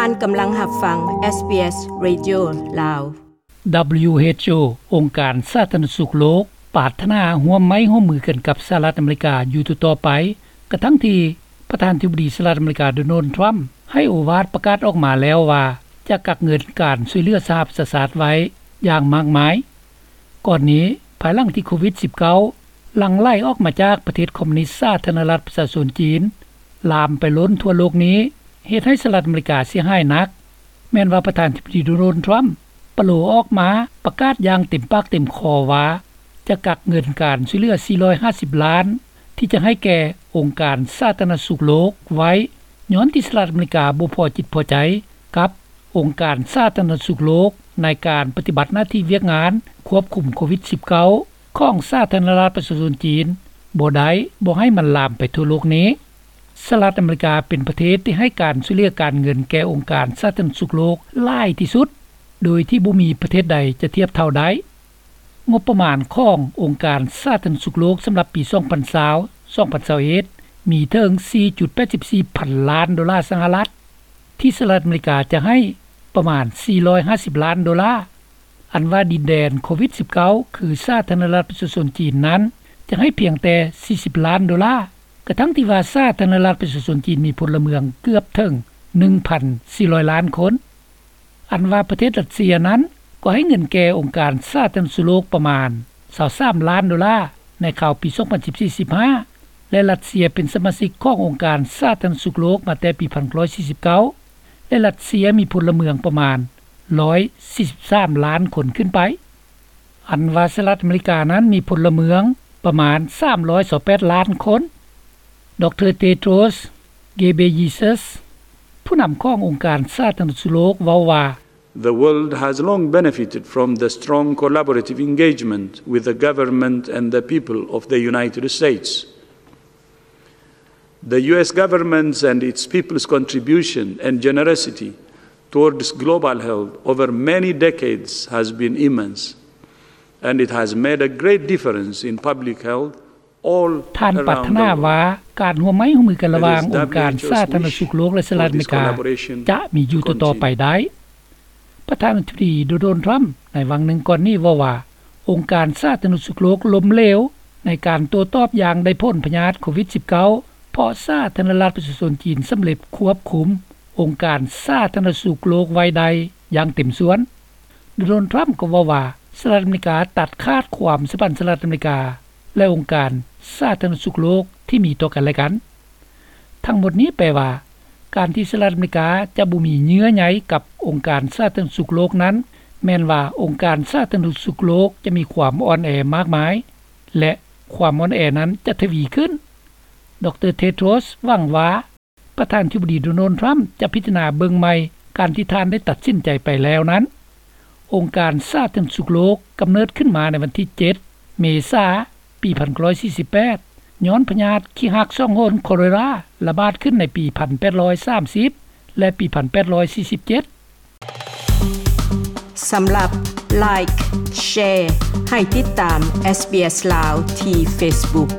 ທ່ານກຳລັງຮັບຟັງ ເອສບີເອສ Radio ລາວ. ດັບເບິນຢູເອັດໂອ ອົງການສາທາລະນະສຸກໂລກ ປາດຖະໜາຮ່ວມໄມ້ຮ່ວມມືກັນກັບສະຫະລັດອາເມລິກາຢູ່ຕໍ່ໆໄປ, ກະທັ່ງທີ່ປະທານາທິບໍດີສະຫະລັດອາເມລິກາ ໂດນັລ ທຣຳ ໃຫ້ໂອວາດປະກາດອອກມາແລ້ວວ່າ ຈະກັກເງິນການຊ່ວຍເຫຼືອສະຫະປະຊາຊາດໄວ້ຢ່າງມາກມາຍ. ກ່ອນນີ້, ພາຍຫຼັງທີ່ໂຄວິດສິບເກົ້າ ຫຼັ່ງໄຫຼອອກມາຈາກປະເທດຄອມມູນິດສາທາລະນະລັດປະຊາຊົນຈີນ ລາມໄປລົ້ນທົ່ວໂລກນີ້ ເຮັດໃຫ້ສະຫະລັດອາເມລິກາເສຍຫາຍໜັກ, ແມ່ນວ່າປະທານາທິບໍດີ ໂດນັລ ທຣຳ ປະໂລອອກມາປະກາດຢ່າງເຕັມປາກເຕັມຄໍວ່າ ຈະກັກເງິນການຊ່ວຍເຫຼືອສີ່ຮ້ອຍຫ້າສິບລ້ານ ທີ່ຈະໃຫ້ແກ່ອົງການສາທາລະນະສຸກໂລກໄວ້, ຍ້ອນທີ່ສະຫະລັດອາເມລິກາບໍ່ພໍຈິດພໍໃຈກັບອົງການສາທາລະນະສຸກໂລກ ໃນການປະຕິບັດໜ້າທີ່ວຽກງານຄວບຄຸມໂຄວິດສິບເກົ້າ ຂອງສາທາລະນະລັດປະຊາຊົນຈີນບໍ່ໄດ້, ບໍ່ໃຫ້ມັນລາມໄປທົ່ວໂລກນີ້. ສະຫະລັດອາເມລິກາເປັນປະເທດທີ່ໃຫ້ການຊ່ວຍເຫຼືອການເງິນແກ່ອົງການສາທາລະນະສຸກໂລກຫຼາຍທີ່ສຸດ ໂດຍທີ່ບໍ່ມີປະເທດໃດຈະທຽບເທົ່າໄດ້. ງົບປະມານຂອງອົງການສາທາລະນະສຸກໂລກສຳລັບປີສອງພັນຊາວ ສອງພັນຊາວເອັດ ມີເຖິງສີ່ຈຸດແປດສິບສີ່ພັນລ້ານໂດລາສະຫະລັດ, ທີ່ສະຫະລັດອາເມລິກາຈະໃຫ້ປະມານສີ່ຮ້ອຍຫ້າສິບລ້ານໂດລາ. ອັນວ່າດິນແດນໂຄວິດສິບເກົ້າ ຄືສາທາລະນະລັດປະຊາຊົນຈີນນັ້ນ ຈະໃຫ້ພຽງແຕ່ສີ່ສິບລ້ານໂດລາ, ກະທັ່ງທີ່ວ່າສາທາລະນະລັດປະຊາຊົນຈີນມີພົນລະເມືອງເກືອບເຖິງໜຶ່ງພັນສີ່ຮ້ອຍລ້ານຄົນ. ອັນວ່າປະເທດຣັດເຊຍນັ້ນ ກໍໃຫ້ເງິນແກ່ອົງການສາທາລະນະສຸກໂລກປະມານຊາວສາມລ້ານໂດລາ ໃນຄາວປີສອງພັນສິບສີ່ ສິບຫ້າ ແລະ ຣັດເຊຍເປັນສະມາຊິກຂອງອົງການສາທາລະນະສຸກໂລກມາແຕ່ປີພັນເກົ້າຮ້ອຍສີ່ສິບເກົ້າ ແລະ ຣັດເຊຍມີພົນລະເມືອງປະມານຮ້ອຍສີ່ສິບສາມລ້ານຄົນຂຶ້ນໄປ. ອັນວ່າສະຫະລັດອາເມລິການັ້ນມີພົນລະເມືອງປະມານສາມຮ້ອຍຊາວແປດລ້ານຄົນ. ດຣ ເຕໂຕຣສ ເກເບເຢຊັສ ຜູ້ນຳຂອງອົງການສາທາລະນະສຸກໂລກເວົ້າວ່າ, The world has long benefited from the strong collaborative engagement with the government and the people of the United States. The U S government's and its people's contribution and generosity towards global health over many decades has been immense, and it has made a great difference in public health all around the world. ທ່ານປາດຖະໜາວ່າ ການຮ່ວມໄມ້ຮ່ວມມືກັນລະຫວ່າງອົງການສາທາລະນະສຸກໂລກ ແລະ ສະຫະລັດອາເມລິກາ ຈະມີຢູ່ຕໍ່ໆໄປໄດ້. ປະທານາທິບໍດີ ໂດນັລ ທຣຳ ໃນຫວ່າງໜຶ່ງກ່ອນນີ້ເວົ້າວ່າ ອົງການສາທາລະນະສຸກໂລກລົ້ມເຫຼວໃນການໂຕ້ຕອບຢ່າງໄດ້ຜົນພະຍາດໂຄວິດສິບເກົ້າ ເພາະສາທາລະນະລັດປະຊາຊົນຈີນສຳເລັດຄວບຄຸມອົງການສາທາລະນະສຸກໂລກໄວ້ໄດ້ຢ່າງເຕັມສ່ວນ. ໂດນັລ ທຣຳ ກໍເວົ້າວ່າ ສະຫະລັດອາເມລິກາຕັດຂາດຄວາມສຳພັນສະຫະລັດອາເມລິກາ ແລະ ອົງການສາທາລະນະສຸກໂລກທີ່ມີຕໍ່ກັນແລະກັນ. ທັງໝົດນີ້ແປວ່າ ການທີ່ສະຫະລັດອາເມລິກາຈະບໍ່ມີເຍື່ອໃຍກັບອົງການສາທາລະນະສຸກໂລກນັ້ນ ແມ່ນວ່າອົງການສາທາລະນະສຸກໂລກຈະມີຄວາມອ່ອນແອມາກມາຍ ແລະ ຄວາມອ່ອນແອນັ້ນຈະທະວີຂຶ້ນ. ດຣ ເຕໂຕຣສ ຫວັງວ່າ ປະທານາທິບໍດີ ໂດນັລ ທຣຳ ຈະພິຈາລະນາເບິ່ງໃໝ່ການທີ່ທ່ານໄດ້ຕັດສິນໃຈໄປແລ້ວນັ້ນ. ອົງການສາທາລະນະສຸກໂລກກຳເນີດຂຶ້ນມາໃນວັນທີເຈັດ ເມສາ ປີພັນເກົ້າຮ້ອຍສີ່ສິບແປດ ຍ້ອນພະຍາດຂີ້ຮາກສອງຫົນ ຄໍເລຣາ ລະບາດຂຶ້ນໃນປີພັນແປດຮ້ອຍສາມສິບ ແລະ ປີພັນແປດຮ້ອຍສີ່ສິບເຈັດ. ສຳລັບ Like, Share ໃຫ້ຕິດຕາມ ເອສບີເອສ ລາວ ທີ່ Facebook.